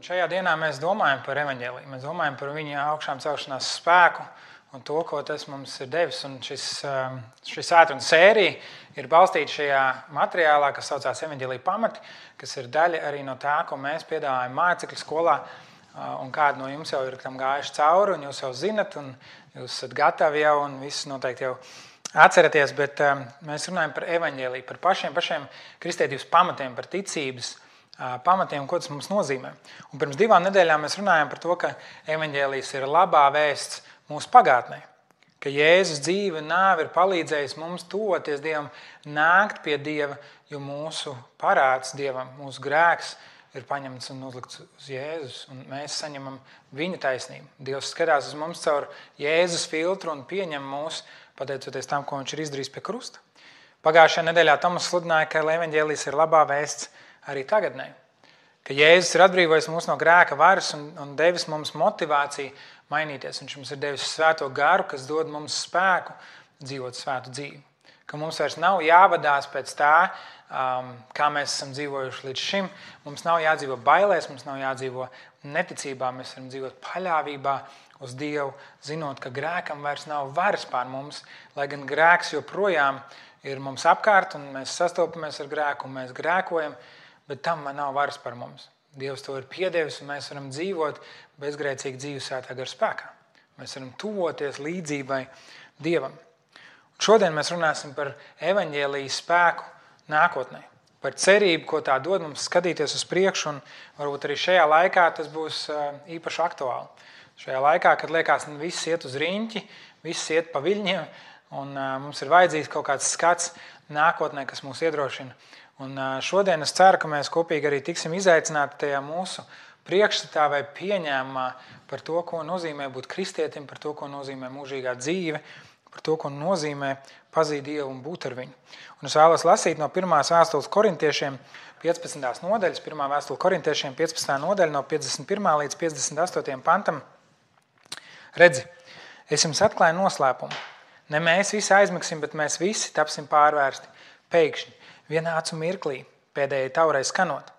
Šajā dienā mēs domājam par evaņģēliju, mēs domājam par viņa augšām celšanās spēku un to, ko tas mums ir devis. Un šis svētdienas sērija ir balstīta šajā materiālā, kas saucās Evaņģēlija pamati, kas ir daļa arī no tā, ko mēs piedāvājam mācekļu skolā. Un kādi no jums jau ir tam gājuši cauri, un jūs jau zinat, un jūs esat gatavi jau, un visus noteikti jau atceraties, bet mēs runājam par evaņģēliju, par pašiem kristietības pamatiem, par ticības pamatiem, ko tas mums nozīmē. Un pirms 2 nedēļām mēs runājam par to, ka evaņģēlijs ir labā vēsts mūsu pagātnē, ka Jēzus dzīve un nāve ir palīdzējis mums tuvoties Dievam, nākt pie Dieva, jo mūsu parāds Dievam, mūsu grēks ir paņemts un uzlikts uz Jēzus, un mēs saņemam viņa taisnību. Dievs skatās uz mums caur Jēzus filtru un pieņem mūs, pateicoties tam, ko viņš ir izdarījis pie krusta. Pagājušajā nedēļā Tomas sludināja, ka evaņģēlijs ir labā vēsts arī tagadnē, ka Jēzus ir atbrīvojis mūs no grēka varas un devis mums motivāciju mainīties. Viņš mums ir devis svēto garu, kas dod mums spēku dzīvot svētu dzīvi. Ka mums vairs nav jāvadās pēc tā, kā mēs esam dzīvojuši līdz šim. Mums nav jādzīvo bailēs, mums nav jādzīvo neticībā. Mēs varam dzīvot paļāvībā uz Dievu, zinot, ka grēkam vairs nav varas pār mums, lai gan grēks joprojām ir mums apkārt un mēs sastopamies ar grēku un mēs grēkojam, bet tam nav varas par mums. Dievs to ir piedevis un mēs varam dzīvot bezgrēcīgi dzīvi svētā gara spēkā. Mēs varam tuvoties līdzībai Dievam. Un šodien mēs runāsim par evaņģēlijas spēku nākotnē, par cerību, ko tā dod mums skatīties uz priekšu, un varbūt arī šajā laikā tas būs īpaši aktuāli. Šajā laikā, kad liekas, viss iet uz riņķi, viss iet pa viļņiem, un mums ir vajadzīgs kaut kāds skats nākotnē, kas mūs iedrošina. Un šodien es ceru, ka mēs kopīgi arī tiksim izaicināti tajā mūsu priekšstatā vai pieņēmumā par to, ko nozīmē būt kristietim, par to, ko nozīmē mūžīgā dzīve, par to, ko nozīmē pazīt Dievu un būt ar viņu. Un es vēlos lasīt no 1. vēstules korintiešiem 15. nodaļas, 1. vēstule korintiešiem 15. nodaļa no 51. līdz 58. pantam. Redzi, es jums atklāju noslēpumu. Ne mēs visi aizmigsim, bet mēs visi tapsim pārvērsti pēkšņi. Vienā acu mirklī, pēdējai taurai skanot.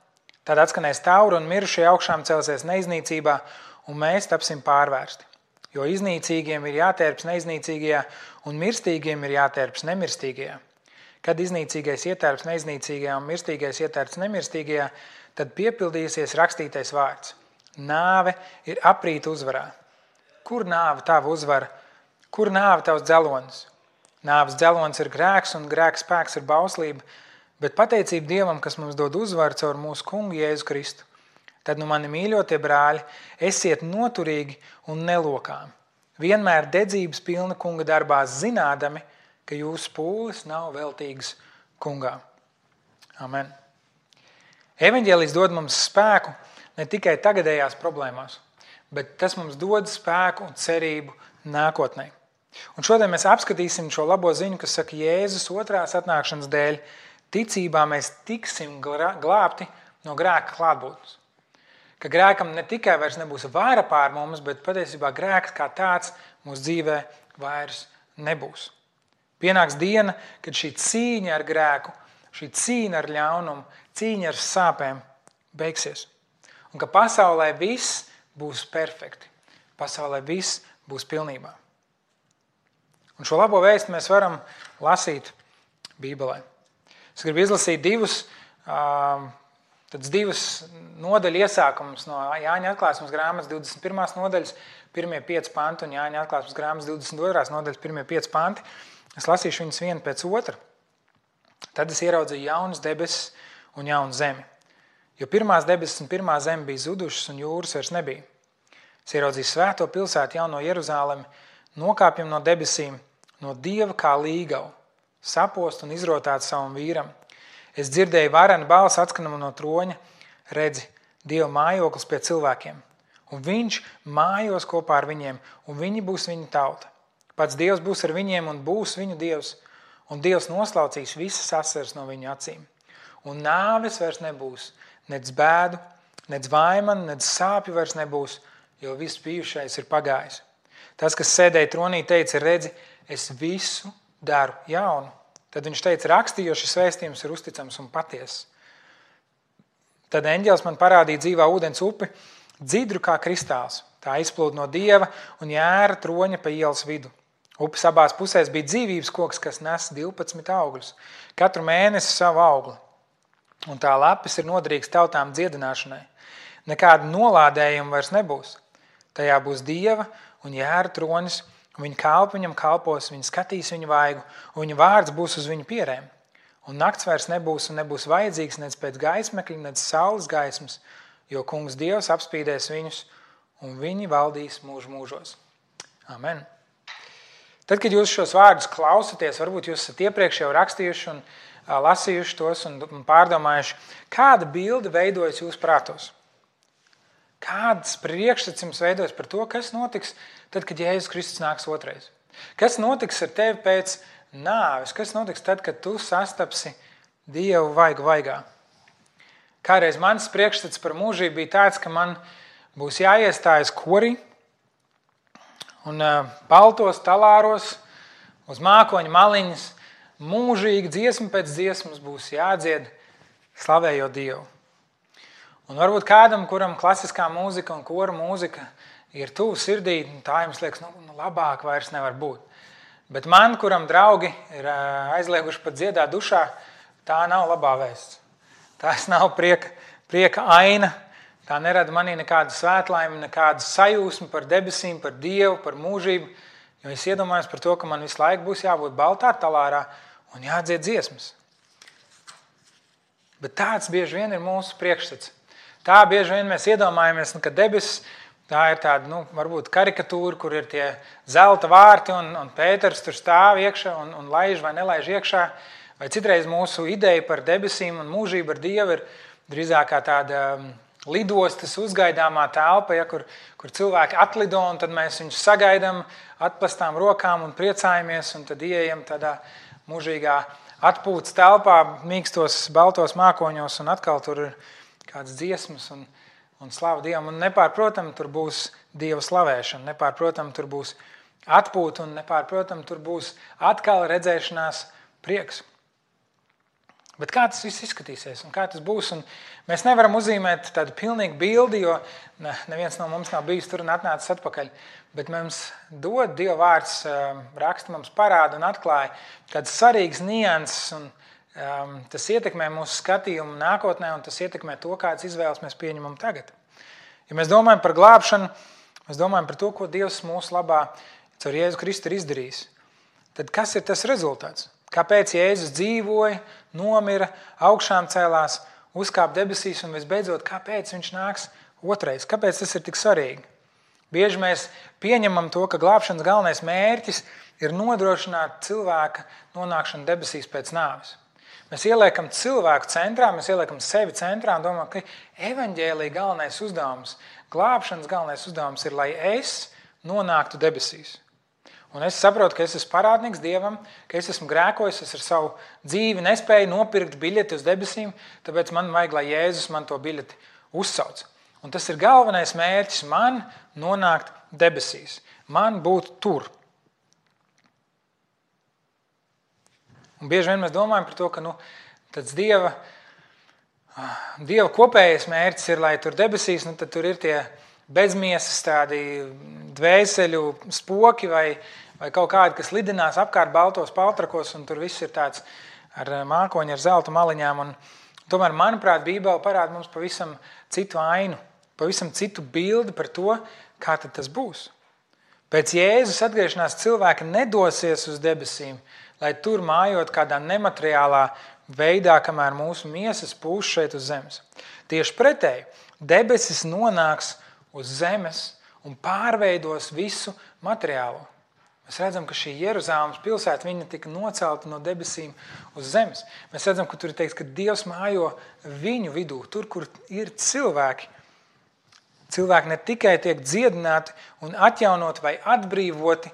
Tad atskanēs taura un mirušie augšām celsies neiznīcībā, un mēs tapsim pārvērsti. Jo iznīcīgiem ir jātērps neiznīcīgajā, un mirstīgiem ir jātērps nemirstīgajā. Kad iznīcīgais ietērps neiznīcīgajā un mirstīgais ietērps nemirstīgajā, tad piepildīsies rakstītais vārds. Nāve ir aprīta uzvarā. Kur nāve tava uzvara? Kur nāve tavs dzelonis? Nāves dzelonis ir grēks, un grēka spēks ir bauslība, bet pateicība Dievam, kas mums dod uzvaru caur mūsu kungu Jēzu Kristu. Tad, mani mīļotie brāļi, esiet noturīgi un nelokām. Vienmēr dedzības pilna kunga darbā, zinādami, ka jūsu pūles nav veltīgas kungā. Amen. Evaņģēlijs dod mums spēku ne tikai tagadējās problēmās, bet tas mums dod spēku un cerību nākotnē. Un šodien mēs apskatīsim šo labo ziņu, kas saka, Jēzus otrās atnākšanas dēļ ticībā mēs tiksim glābti no grēka klātbūtnes. Ka grēkam ne tikai vairs nebūs vāra pār mums, bet patiesībā grēks kā tāds mūsu dzīvē vairs nebūs. Pienāks diena, kad šī cīņa ar grēku, šī cīņa ar ļaunumu, cīņa ar sāpēm beigsies. Un ka pasaulē viss būs perfekti. Pasaulē viss būs pilnībā. Un šo labo vēstu mēs varam lasīt Bībelē. Es gribu izlasīt divus nodaļu iesākumus no Jāņa atklāsmes grāmatas 21. nodaļas, 1. 5 panti un Jāņa atklāsmes grāmatas 22. nodaļas, 1. 5 panti. Es lasīšu viņus vienu pēc otra. Tad es ieraudzīju jaunas debesis un jaunu zemi. Jo pirmās debesis un pirmā zeme bija zudušas un jūras vairs nebija. Es ieraudzīju svēto pilsētu jauno Jeruzālemi, nokāpjam no debesīm, no Dieva kā līgavu, sapost un izrotāt savam vīram. Es dzirdēju varenu balsi atskanamu no troņa, redzi, Dieva mājoklis pie cilvēkiem. Un viņš mājos kopā ar viņiem, un viņi būs viņa tauta. Pats Dievs būs ar viņiem un būs viņu Dievs, un Dievs noslaucīs visas asaras no viņu acīm. Un nāves vairs nebūs, nec bēdu, nec vaimanu, nec sāpju vairs nebūs, jo viss bijušais ir pagājis. Tas, kas sēdēja tronī, teica, redzi, es visu daru jaunu. Tad viņš teica, rakstīju, jo šis vēstījums ir uzticams un patiess. Tad eņģelis man parādīja dzīvā ūdens upi, dzidru kā kristāls. Tā izplūda no Dieva un jēra troņa pa ielas vidu. Upes abās pusēs bija dzīvības koks, kas nes 12 augļus, katru mēnesi savu augli. Un tā lapis ir noderīgs tautām dziedināšanai. Nekāda nolādējuma vairs nebūs. Tajā būs Dieva un jēra tronis, un viņa kalpi viņam kalpos, viņa skatīs viņu vaigu, un viņa vārds būs uz viņu pierēm. Un nakts vairs nebūs un nebūs vajadzīgs nec pēc gaismekļa, nec saules gaismas, jo kungs Dievs apspīdēs viņus, un viņi valdīs mūžu mūžos. Amen. Tad, kad jūs šos vārdus klausaties, varbūt jūs esat iepriekš jau rakstījuši un lasījuši tos un pārdomājuši, kāda bilde veidojas jūsu prātos? Kāds priekšstats jums veidojas par to, kas notiks tad, kad Jēzus Kristus nāks otrais? Kas notiks ar tevi pēc nāves? Kas notiks tad, kad tu sastapsi Dievu vaigu vaigā? Kādreiz mans priekšstats par mūžību bija tāds, ka man būs jāiestājas korī un baltos talāros uz mākoņa maliņas mūžīgi dziesma pēc dziesmas būs jādzied slavējot Dievu. Un varbūt kādam, kuram klasiskā mūzika un kora mūzika ir tuvu sirdī, tā jums liekas, labāk vairs nevar būt. Bet man, kuram draugi ir aizlieguši pat dziedāt dušā, tā nav labā vēsts. Tās nav prieka aina. Tā nerada manī nekādu svētlaimi, nekādu sajūsmu par debesīm, par Dievu, par mūžību. Jo es iedomājos par to, ka man visu laiku būs jābūt baltā talārā un jādzied dziesmas. Bet tāds bieži vien ir mūsu priekšstats. Tā bieži vien mēs iedomājamies, ka debesis tā ir tāda, varbūt karikatūra, kur ir tie zelta vārti un Pēters tur stāv iekšā un laiž vai nelaiž iekšā. Vai citreiz mūsu ideja par debesīm un mūžību ar Dievu ir drīzāk kā tāda lidostas uzgaidāmā telpa, kur cilvēki atlido un tad mēs viņus sagaidām atplastām rokām un priecājamies un tad ieejam tādā mūžīgā atpūtas telpā, mīkstos baltos mākoņos un atkal tur ir kādas dziesmas un slava Dievam. Un nepārprotam tur būs Dieva slavēšana, nepārprotam tur būs atpūta un nepārprotam tur būs atkal redzēšanās prieks. Bet kā tas viss izskatīsies un kā tas būs? Un mēs nevaram uzzīmēt tādu pilnīgu bildi, jo neviens no mums nav bijis tur un atnācis atpakaļ. Bet mums dod Dieva vārds, raksta mums parāda un atklāja kādas svarīgas nianses, un tas ietekmē mūsu skatījumu nākotnē, un tas ietekmē to, kādas izvēles mēs pieņemam tagad. Ja mēs domājam par glābšanu, mēs domājam par to, ko Dievs mūsu labā caur Jēzu Kristu ir izdarījis. Tad kas ir tas rezultāts? Kāpēc Jēzus dzīvoja, nomira, augšām cēlās, uzkāpa debesīs un visbeidzot, kāpēc viņš nāks otrais? Kāpēc tas ir tik svarīgi? Bieži mēs pieņemam to, ka glābšanas galvenais mērķis ir nodrošināt cilvēka nonākšanu debesīs pēc nāves. Mēs ieliekam cilvēku centrā, mēs ieliekam sevi centrā un domājam, ka evaņģēlija galvenais uzdevums, glābšanas galvenais uzdevums ir, lai es nonāktu debesīs. Un es saprotu, ka es esmu parādnieks Dievam, ka es esmu grēkojis, es ar savu dzīvi nespēju nopirkt biļeti uz debesīm, tāpēc man vajag, lai Jēzus man to biļeti uzsauc. Un tas ir galvenais mērķis man nonākt debesīs, man būt tur. Un bieži vien mēs domājam par to, ka tāds Dieva kopējais mērķis ir, lai tur debesīs, tad tur ir tie bezmiesas tādi dvēseļu spoki vai kaut kādi, kas lidinās apkārt baltos paltrakos, un tur viss ir tāds ar mākoņu, ar zelta maliņām. Un tomēr, manuprāt, Bībele parāda mums pavisam citu ainu, pavisam citu bildi par to, kā tad tas būs. Pēc Jēzus atgriešanās cilvēki nedosies uz debesīm, lai tur mājot kādā nemateriālā veidā, kamēr mūsu miesas pūš šeit uz zemes. Tieši pretēji, debesis nonāks uz zemes un pārveidos visu materiālo. Mēs redzam, ka šī Jeruzāles pilsēta viņa tika nocelta no debesīm uz zemes. Mēs redzam, ka tur ir teikts, ka Dievs mājo viņu vidū, tur, kur ir cilvēki. Cilvēki ne tikai tiek dziedināti un atjaunoti vai atbrīvoti,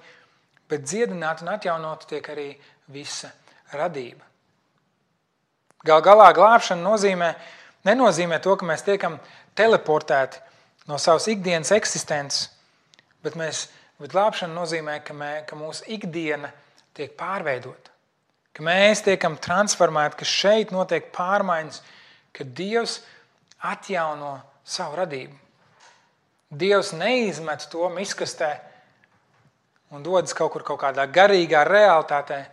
bet dziedināti un atjaunoti tiek arī visa radība. Gal galā glābšana nenozīmē to, ka mēs tiekam teleportēti no savas ikdienas eksistences, bet glābšana nozīmē, ka mūsu ikdiena tiek pārveidota, ka mēs tiekam transformēti, ka šeit notiek pārmaiņas, ka Dievs atjauno savu radību. Dievs neizmet to miskastē un dodas kaut kādā garīgā realitātē,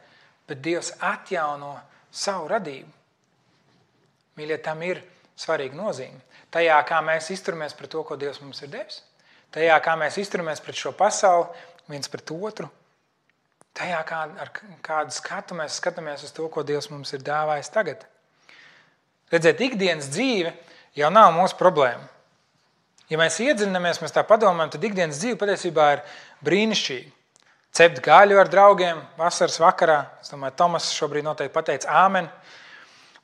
bet Dievs atjauno savu radību. Mīļie, tam ir svarīga nozīme. Tajā, kā mēs izturamies pret to, ko Dievs mums ir devis. Tajā, kā mēs izturamies pret šo pasauli, viens pret otru. Tajā, ar kādu skatu mēs skatāmies uz to, ko Dievs mums ir dāvājis tagad. Redzēt, ikdienas dzīve jau nav mūsu problēma. Ja mēs iedziļinamies, mēs tā padomājam, tad ikdienas dzīve patiesībā ir brīnišķīga. Cept gaļu ar draugiem vasaras vakarā. Es domāju, Tomas šobrīd noteikti pateica āmen.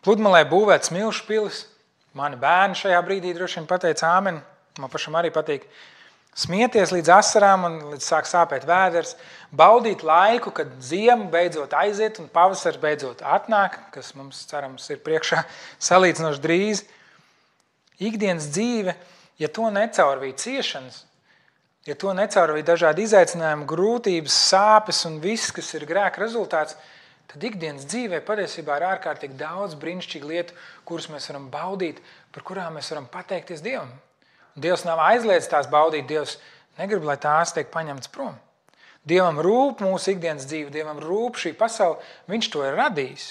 Pludmalē būvēt smilšu pilis. Mani bērni šajā brīdī droši vien pateica āmen. Man pašam arī patīk smieties līdz asarām un līdz sāk sāpēt vēders. Baudīt laiku, kad ziema beidzot aiziet un pavasars beidzot atnāk, kas mums, cerams, ir priekšā salīdzinoši drīz. Ikdienas dzīve, ja to necaurvīja ciešanas, ja to necaurvīja dažādi izaicinājumi, grūtības, sāpes un viss, kas ir grēka rezultāts, tad ikdienas dzīvē patiesībā ir ārkārtīgi daudz brīnišķīgu lietu, kuras mēs varam baudīt, par kurām mēs varam pateikties Dievam. Dievs nav aizliedzis tās baudīt, Dievs negrib, lai tās tiek paņemtas prom. Dievam rūp mūsu ikdienas dzīve, Dievam rūp šī pasaule, viņš to ir radījis.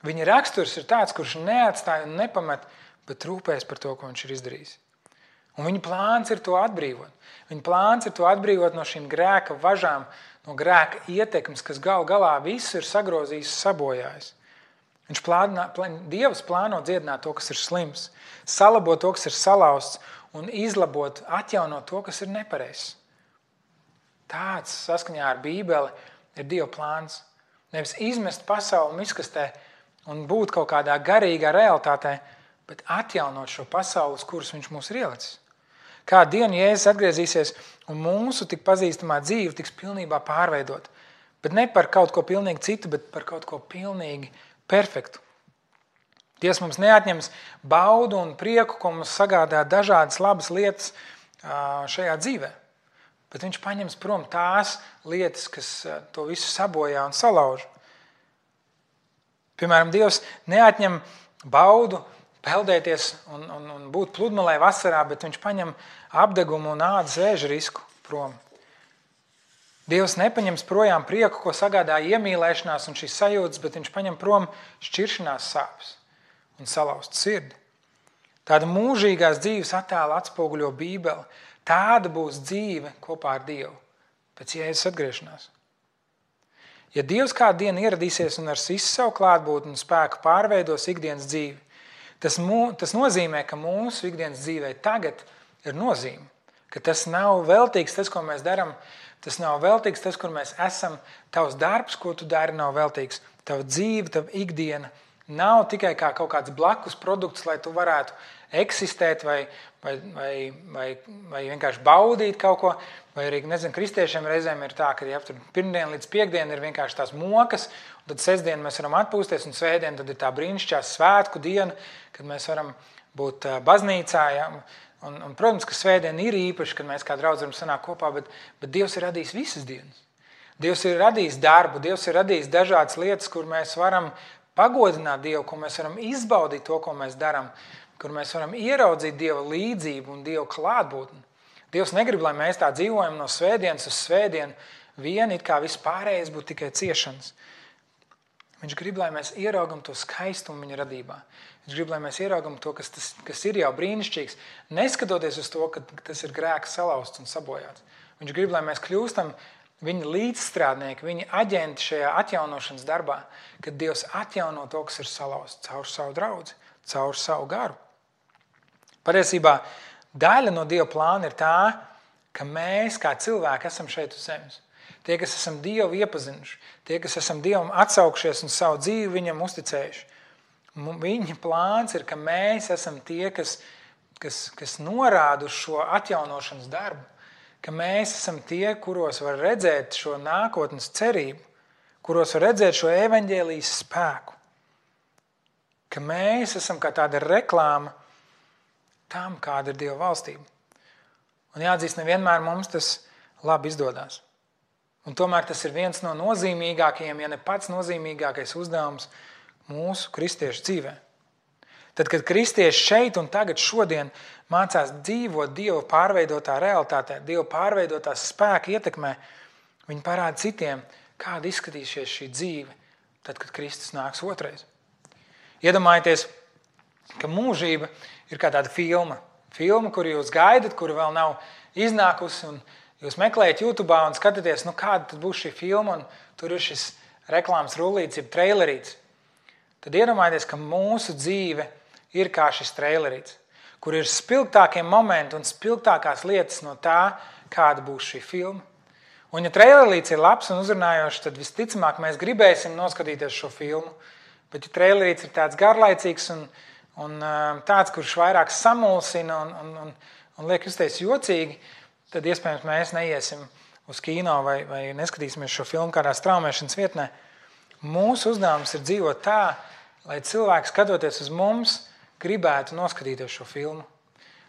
Viņa raksturs ir tāds, kurš neatstāja un nepamet, bet rūpēs par to, ko viņš ir izdarījis. Un viņa plāns ir to atbrīvot. Viņa plāns ir to atbrīvot no šīm grēka važām, no grēka ietekmes, kas galā visu ir sagrozījis, sabojājis. Dievs plāno dziedināt to, kas ir slims, salabot to, kas ir salauzts, un izlabot, atjaunot to, kas ir nepareizs. Tāds, saskaņā ar Bībeli, ir Dieva plāns. Nevis izmest pasauli miskastē un būt kaut kādā garīgā realitātē, bet atjaunot šo pasauli, uz kuras viņš mūs ir ielicis. Kādu dienu Jēzus atgriezīsies un mūsu tik pazīstamā dzīve tiks pilnībā pārveidot. Bet ne par kaut ko pilnīgi citu, bet par kaut ko pilnīgi perfektu. Dievs mums neatņems baudu un prieku, ko mums sagādā dažādas labas lietas šajā dzīvē. Bet viņš paņems prom tās lietas, kas to visu sabojā un salauž. Piemēram, Dievs neatņem baudu peldēties un būt pludmalē vasarā, bet viņš paņem apdegumu un ādas vēža risku prom. Dievs nepaņems projām prieku, ko sagādā iemīlēšanās un šīs sajūtas, bet viņš paņem prom šķiršanās sāpes un salauzt sirdi. Tāda mūžīgās dzīves attēla atspoguļo Bībeli. Tāda būs dzīve kopā ar Dievu pēc Jēzus atgriešanās. Ja Dievs kādu dienu ieradīsies un ar visu savu klātbūtni un spēku pārveidos ikdienas dzīvi, tas nozīmē, ka mūsu ikdienas dzīvē tagad ir nozīme, ka tas nav veltīgs tas, ko mēs darām, tas nav veltīgs tas, kur mēs esam, tavs darbs, ko tu dari, nav veltīgs, tava dzīve, tava ikdiena nav tikai kā kaut kāds blakus produkts, lai tu varētu eksistēt vai vienkārši baudīt kaut ko, vai arī, kristiešiem reizēm ir tā, ka pirmdien līdz piekdien ir vienkārši tās mokas, un tad sestdien mēs varam atpūsties, un svētdien tad ir tā brīnišķīgā svētku diena, kad mēs varam būt baznīcā, ja? Un, protams, ka svētdien ir īpaši, kad mēs kā draudz varam sanākt kopā, bet Dievs ir radījis visas dienas. Dievs ir radījis darbu, Dievs ir radījis dažādas lietas, kur mēs varam pagodināt Dievu, kur mēs varam izbaudīt to, ko mēs darām, kur mēs varam ieraudzīt Dieva līdzību un Dieva klātbūtni. Dievs negrib, lai mēs tā dzīvojam no svētdienas uz svētdienu, it kā viss pārējais būtu tikai ciešanas. Viņš grib, lai mēs ieraugam to skaistumu viņa radībā. Viņš grib, lai mēs ieraugam to, kas ir jau brīnišķīgs, neskatoties uz to, ka tas ir grēks salauzts un sabojāts. Viņš grib, lai mēs kļūstam viņa līdzstrādnieki, viņa aģenti šajā atjaunošanas darbā, kad Dievs atjauno to, kas ir salauzts caur savu draudzi, caur savu garu. Patiesībā daļa no Dieva plāna ir tā, ka mēs kā cilvēki esam šeit uz zemes. Tie, kas esam Dievu iepazinuši, tie, kas esam Dievam atsaukšies un savu dzīvi viņam uzticējuši. Viņa plāns ir, ka mēs esam tie, kas norāda uz šo atjaunošanas darbu, ka mēs esam tie, kuros var redzēt šo nākotnes cerību, kuros var redzēt šo evaņģēlijas spēku, ka mēs esam kā tāda reklāma tam, kāda ir Dieva valstība. Un jāatzīst, nevienmēr mums tas labi izdodās. Un tomēr tas ir viens no nozīmīgākajiem, ja ne pats nozīmīgākais uzdevums mūsu kristiešu dzīvē. Tad, kad kristieši šeit un tagad šodien mācās dzīvot Dieva pārveidotā realitātē, Dieva pārveidotās spēka ietekmē, viņi parāda citiem, kāda izskatīsies šī dzīve, tad, kad Kristus nāks otrais. Iedomājieties, ka mūžība ir kā tāda filma. Filma, kuru jūs gaidat, kura vēl nav iznākusi, un jūs meklējat YouTube un skatāties, kāda tad būs šī filma, un tur ir šis reklāmas rullīts, jeb trailerīts. Tad iedomājieties, ka mūsu dzīve ir kā šis trailerīts, kur ir spilgtākie momenti un spilgtākās lietas no tā, kāda būs šī filma. Un ja trailerīts ir labs un uzrunājošs, tad visticamāk mēs gribēsim noskatīties šo filmu. Bet ja trailerīts ir tāds garlaicīgs un tāds, kurš vairāk samulsina un liek justies jocīgi, tad iespējams mēs neiesim uz kino vai neskatīsimies šo filmu kādā straumēšanas vietnē. Mūsu uzdevums ir dzīvot tā, lai cilvēki skatoties uz mums, gribētu noskatīties šo filmu.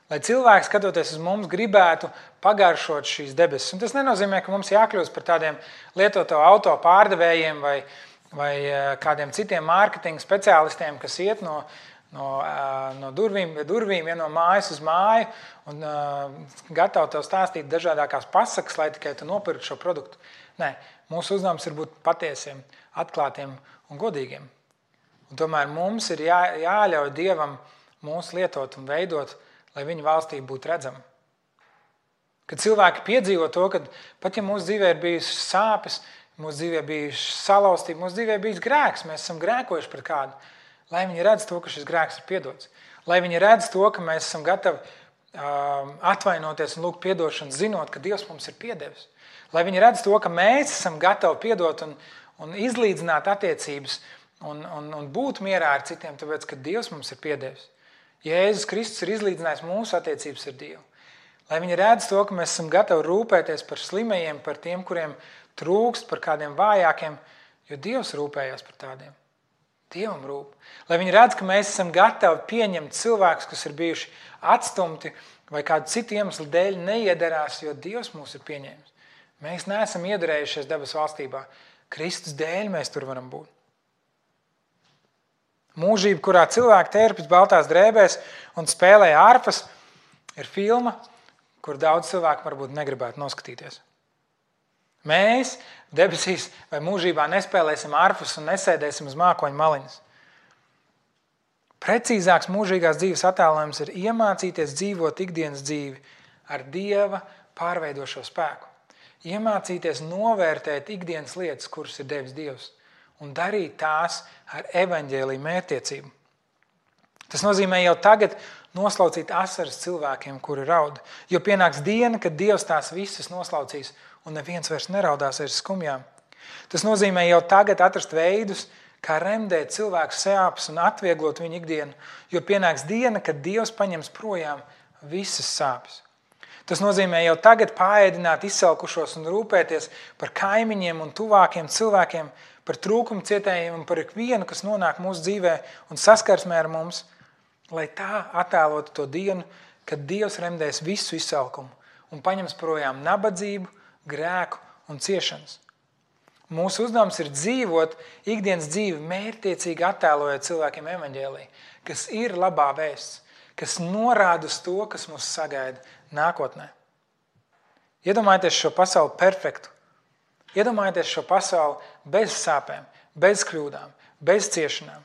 Lai cilvēki, skatoties uz mums, gribētu pagaršot šīs debesis. Un tas nenozīmē, ka mums jākļūst par tādiem lietoto auto pārdevējiem vai kādiem citiem mārketinga speciālistiem, kas iet no durvīm, no mājas uz māju un gatavi tev stāstīt dažādākās pasakas, lai tikai tu nopirktu šo produktu. Nē, mūsu uzdevums ir būt patiesiem, atklātiem un godīgiem. Un tomēr mums ir jāļauj Dievam mūs lietot un veidot, lai viņa valstība būtu redzama. Kad cilvēki piedzīvo to, ka pat ja mūsu dzīvē ir bijusi sāpes, mūsu dzīvē bijusi salauztība, mūsu dzīvē bijis grēks, mēs esam grēkojuši pret kādu, lai viņi redz to, ka šis grēks ir piedots. Lai viņi redz to, ka mēs esam gatavi atvainoties un lūgt piedošanu, zinot, ka Dievs mums ir piedevis. Lai viņi redz to, ka mēs esam gatavi piedot un izlīdzināt attiecības un būt mierā ar citiem, tāpēc, ka Dievs mums ir piedevis. Jēzus Kristus ir izlīdzinājis mūsu attiecības ar Dievu. Lai viņi redz to, ka mēs esam gatavi rūpēties par slimajiem, par tiem, kuriem trūkst, par kādiem vājākiem, jo Dievs rūpējās par tādiem. Dievam rūp. Lai viņi redz, ka mēs esam gatavi pieņemt cilvēkus, kas ir bijuši atstumti vai kādu citu iemeslu dēļ neiederās, jo Dievs mūs ir pieņēmis. Mēs neesam iedarējušies debesu valstībā. Kristus dēļ mēs tur varam būt. Mūžība, kurā cilvēki tērpjas baltās drēbēs un spēlē ārpas, ir filma, kur daudz cilvēku varbūt negribētu noskatīties. Mēs debesīs vai mūžībā nespēlēsim ārpus un nesēdēsim uz mākoņu maliņas. Precīzāks mūžīgās dzīves attēlojums ir iemācīties dzīvot ikdienas dzīvi ar Dieva pārveidošo spēku. Iemācīties novērtēt ikdienas lietas, kuras ir devis Dievs, un darīt tās ar evaņģēliju mērķtiecību. Tas nozīmē jau tagad noslaucīt asaras cilvēkiem, kuri raud, jo pienāks diena, kad Dievs tās visas noslaucīs un neviens vairs neraudās aiz skumjām. Tas nozīmē jau tagad atrast veidus, kā remdēt cilvēku sāpes un atvieglot viņu ikdienu, jo pienāks diena, kad Dievs paņems projām visas sāpes. Tas nozīmē jau tagad paēdināt izsalkušos un rūpēties par kaimiņiem un tuvākiem cilvēkiem, par trūkumu cietējiem un par ikvienu, kas nonāk mūsu dzīvē un saskarsmē ar mums, lai tā attēlotu to dienu, kad Dievs remdēs visu izsalkumu un paņems projām nabadzību, grēku un ciešanas. Mūsu uzdevums ir dzīvot ikdienas dzīvi mērķtiecīgi attēlojot cilvēkiem evaņģēliju, kas ir labā vēsts, kas norāda uz to, kas mūs sagaida nākotnē. Iedomājieties šo pasauli perfektu. Iedomājieties šo pasauli bez sāpēm, bez kļūdām, bez ciešanām.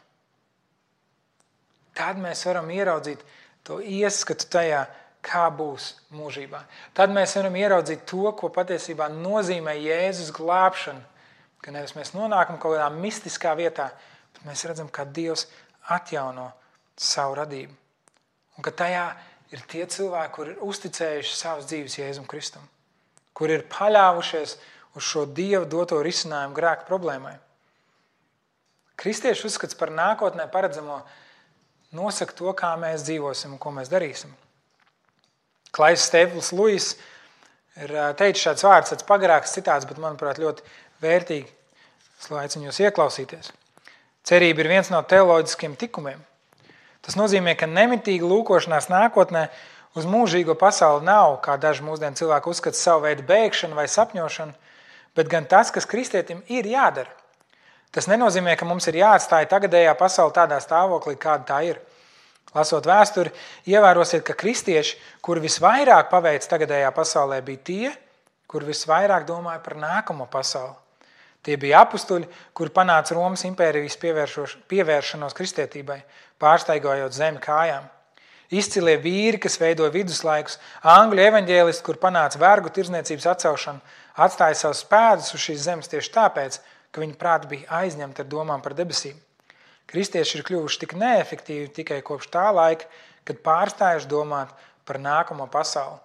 Tad mēs varam ieraudzīt to ieskatu tajā, kā būs mūžībā. Tad mēs varam ieraudzīt to, ko patiesībā nozīmē Jēzus glābšana, ka nevis mēs nonākam kaut kādā mistiskā vietā, bet mēs redzam, kā Dievs atjauno savu radību. Un ka tajā ir tie cilvēki, kuri ir uzticējuši savas dzīves Jēzum Kristum, kuri ir paļāvušies uz šo Dieva doto risinājumu grēka problēmai. Kristiešu uzskats par nākotnē paredzamo nosaka to, kā mēs dzīvosim un ko mēs darīsim. Klais Stēpls Luis ir teicis šāds vārds, tāds pagarāks citāts, bet manuprāt ļoti vērtīgi. Es aicinu jūs ieklausīties. Cerība ir viens no teoloģiskiem tikumiem. Tas nozīmē, ka nemitīga lūkošanās nākotnē uz mūžīgo pasauli nav, kā daži mūsdienu cilvēki uzskata, savu veidu bēgšana vai sapņošana, bet gan tas, kas kristietim ir jādara. Tas nenozīmē, ka mums ir jāatstāja tagadējā pasaule tādā stāvoklī, kāda tā ir. Lasot vēsturi, ievērosiet, ka kristieši, kuri visvairāk paveic tagadējā pasaulē, bija tie, kuri visvairāk domāja par nākamo pasauli. Tie bija apustuļi, kuri panāca Romas impērijas pievēršanos kristietībai, pārstaigājot zemi kājām. Izcilie vīri, kas veidoja viduslaikus, angļu evaņģēlisti, kur panāca vergu tirdzniecības atcelšanu, atstāja savus pēdus uz šīs zemes tieši tāpēc, ka viņa prāti bija aizņemti ar domām par debesīm. Kristieši ir kļuvuši tik neefektīvi tikai kopš tā laika, kad pārstājuši domāt par nākamo pasauli.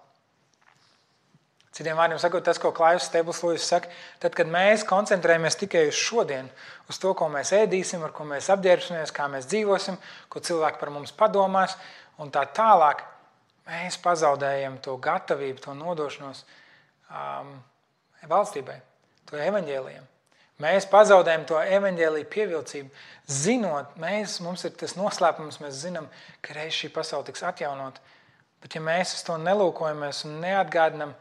Citiem vārdiem sakot, tas, ko Klaivs Stēbls Lūjs saka, tad, kad mēs koncentrējamies tikai uz šodienu, uz to, ko mēs ēdīsim, ar ko mēs apģērbsimies, kā mēs dzīvosim, ko cilvēki par mums padomās, un tā tālāk, mēs pazaudējam to gatavību, to nodošanos valstībai, to evaņģēlijam. Mēs pazaudējam to evaņģēliju pievilcību, zinot, mums ir tas noslēpums, mēs zinām, ka reiz šī pasaule tiks atjaunot, bet ja mēs uz to nelūkojamies un neatgādinam,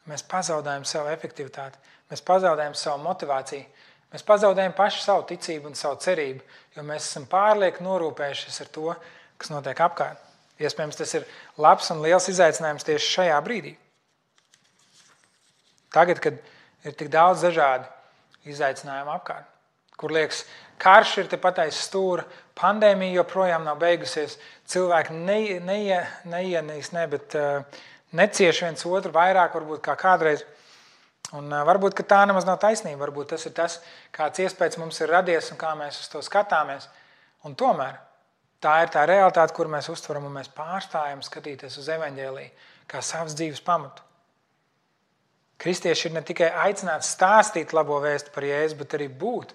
mēs pazaudējam savu efektivitāti, mēs pazaudējam savu motivāciju, mēs pazaudējam paši savu ticību un savu cerību, jo mēs esam pārlieku norūpējušies ar to, kas notiek apkārt. Iespējams, tas ir labs un liels izaicinājums tieši šajā brīdī. Tagad, kad ir tik daudz dažādu izaicinājumu apkārt, kur liekas, karš ir tepat aiz stūra, pandēmija joprojām nav beigusies, cilvēki necieš viens otru vairāk, varbūt kā kādreiz. Un varbūt, ka tā nemaz nav taisnība, varbūt tas ir tas, kāds iespējas mums ir radies un kā mēs uz to skatāmies. Un tomēr tā ir tā realitāte, kur mēs uztveram un mēs pārstājam skatīties uz evaņģēliju kā savas dzīves pamatu. Kristieši ir ne tikai aicināti stāstīt labo vēstu par Jēzu, bet arī būt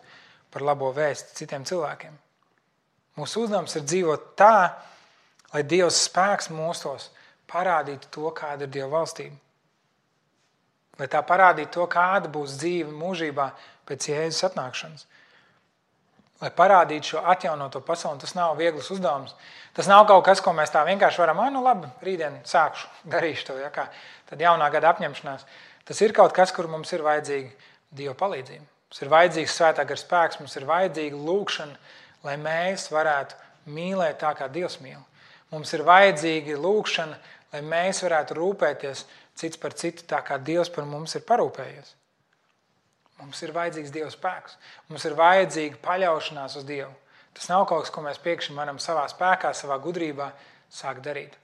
par labo vēstu citiem cilvēkiem. Mūsu uzdevums ir dzīvot tā, lai Dievs spēks mūsos parādītu to, kāda ir Dieva valstība. Lai tā parādītu to, kāda būs dzīve mūžībā pēc Jēzus atnākšanas. Lai parādītu šo atjaunoto pasauli, tas nav viegls uzdevums. Tas nav kaut kas, ko mēs tā vienkārši varam, labi, rītdien sākšu, darīšu to, tad jaunā gada apņemšanās. Tas ir kaut kas, kur mums ir vajadzīga Dieva palīdzība. Mums ir vajadzīgs svētā gara spēks, mums ir vajadzīga lūkšana, lai mēs varētu mīlēt tā, kā Dievs mīl. Mums ir vajadzīga lūkšana, lai mēs varētu rūpēties cits par citu tā, kā Dievs par mums ir parūpējies. Mums ir vajadzīgs Dieva spēks. Mums ir vajadzīga paļaušanās uz Dievu. Tas nav kaut kas, ko mēs pēkšņi varam savā spēkā, savā gudrībā sākt darīt.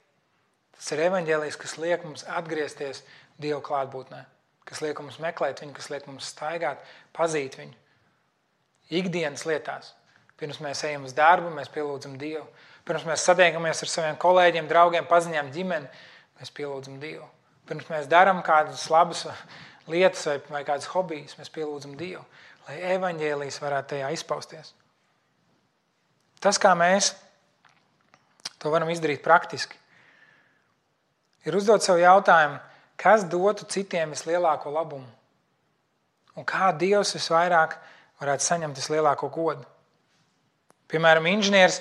Tas ir evaņģēlijs, kas liek mums atgriezties Dieva klātbūtnē, kas liek mums meklēt viņu, kas liek mums staigāt, pazīt viņu. Ikdienas lietās. Pirms mēs ejam uz darbu, mēs pielūdzam Dievu. Pirms mēs satiekamies ar saviem kolēģiem, draugiem, paziņām, ģimeni, mēs pielūdzam Dievu. Pirms mēs darām kādas labas lietas vai kādas hobijas, mēs pielūdzam Dievu, lai evaņģēlijs varētu tajā izpausties. Tas, kā mēs to varam izdarīt praktiski, ir uzdot sev jautājumu, kas dotu citiem vislielāko labumu un kā Dievs visvairāk varētu saņemt vislielāko godu. Piemēram, inženieris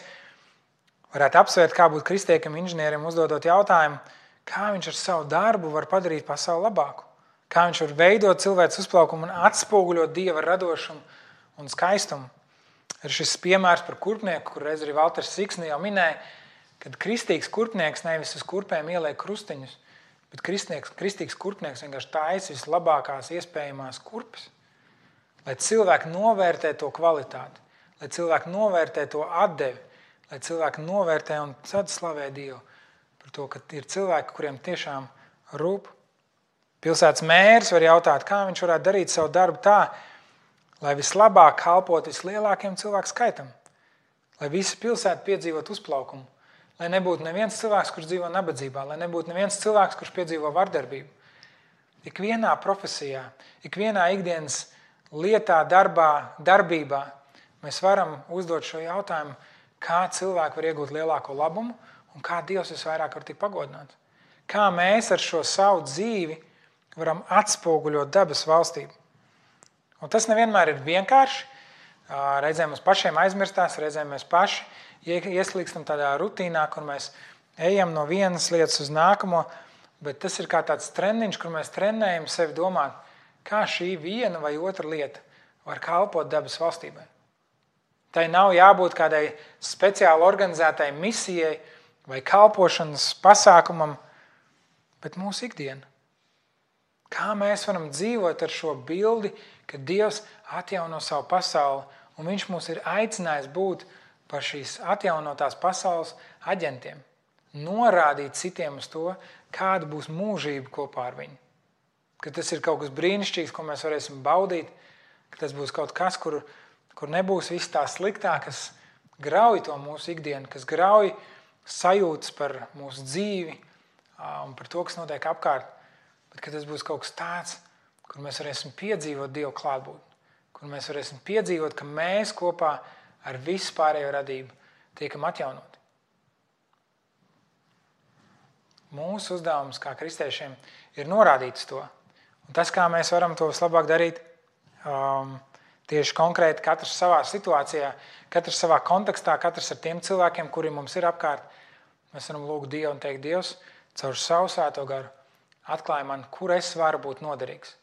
varētu apsvērt, kā būt kristiekam inženierim, uzdodot jautājumu, kā viņš ar savu darbu var padarīt pasauli labāku, kā viņš var veidot cilvēks uzplaukumu un atspoguļot Dieva radošumu un skaistumu. Ir šis piemērs par kurpnieku, kur reiz arī Valters Siksni jau minēja, kad kristīgs kurpnieks nevis uz kurpēm ieliek krustiņus, bet kristīgs kurpnieks vienkārši taisa vislabākās iespējamās kurpes, lai cilvēki novērtē to kvalitāti, lai cilvēki novērtē to atdevi, lai cilvēki novērtē un tad slavē Dievu par to, ka ir cilvēki, kuriem tiešām rūp. Pilsētas mērs var jautāt, kā viņš varētu darīt savu darbu tā, lai vislabāk kalpot vislielākiem cilvēku skaitam, lai visa pilsēta piedzīvot uzplaukumu, lai nebūtu neviens cilvēks, kurš dzīvo nabadzībā, lai nebūtu neviens cilvēks, kurš piedzīvo vardarbību. Ikvienā profesijā, ikvienā ikdienas lietā, darbībā mēs varam uzdot šo jautājumu, kā cilvēki var iegūt lielāko labumu un kā Dievs visvairāk var tikt pagodināts. Kā mēs ar šo savu dzīvi varam atspoguļot dabas valstību. Un tas nevienmēr ir vienkārši. Reizēm mums pašiem aizmirstās, reizēm mēs paši ieslīgstam tādā rutīnā, kur mēs ejam no vienas lietas uz nākamo, bet tas ir kā tāds treniņš, kur mēs trenējam sevi domāt, kā šī viena vai otra lieta var kalpot dabas valstībai. Tai nav jābūt kādai speciāli organizētai misijai, vai kalpošanas pasākumam, bet mūsu ikdiena. Kā mēs varam dzīvot ar šo bildi, ka Dievs atjauno savu pasauli, un Viņš mūs ir aicinājis būt par šīs atjaunotās pasaules aģentiem. Norādīt citiem uz to, kāda būs mūžība kopā ar viņu. Ka tas ir kaut kas brīnišķīgs, ko mēs varēsim baudīt, ka tas būs kaut kas, kur nebūs viss tā sliktā, kas grauj to mūsu ikdienu, kas grauj sajūtas par mūsu dzīvi un par to, kas notiek apkārt. Bet ka tas būs kaut kas tāds, kur mēs varēsim piedzīvot Dievu klātbūtni, kur mēs varēsim piedzīvot, ka mēs kopā ar visu pārējo radību tiekam atjaunoti. Mūsu uzdevums kā kristiešiem ir norādīt to. Un tas, kā mēs varam to vislabāk darīt, tieši konkrēti katrs savā situācijā, katrs savā kontekstā, katrs ar tiem cilvēkiem, kuri mums ir apkārt, mēs varam lūgt Dievu un teikt, Dievs, caur savu svēto garu atklāj man, kur es varu būt noderīgs.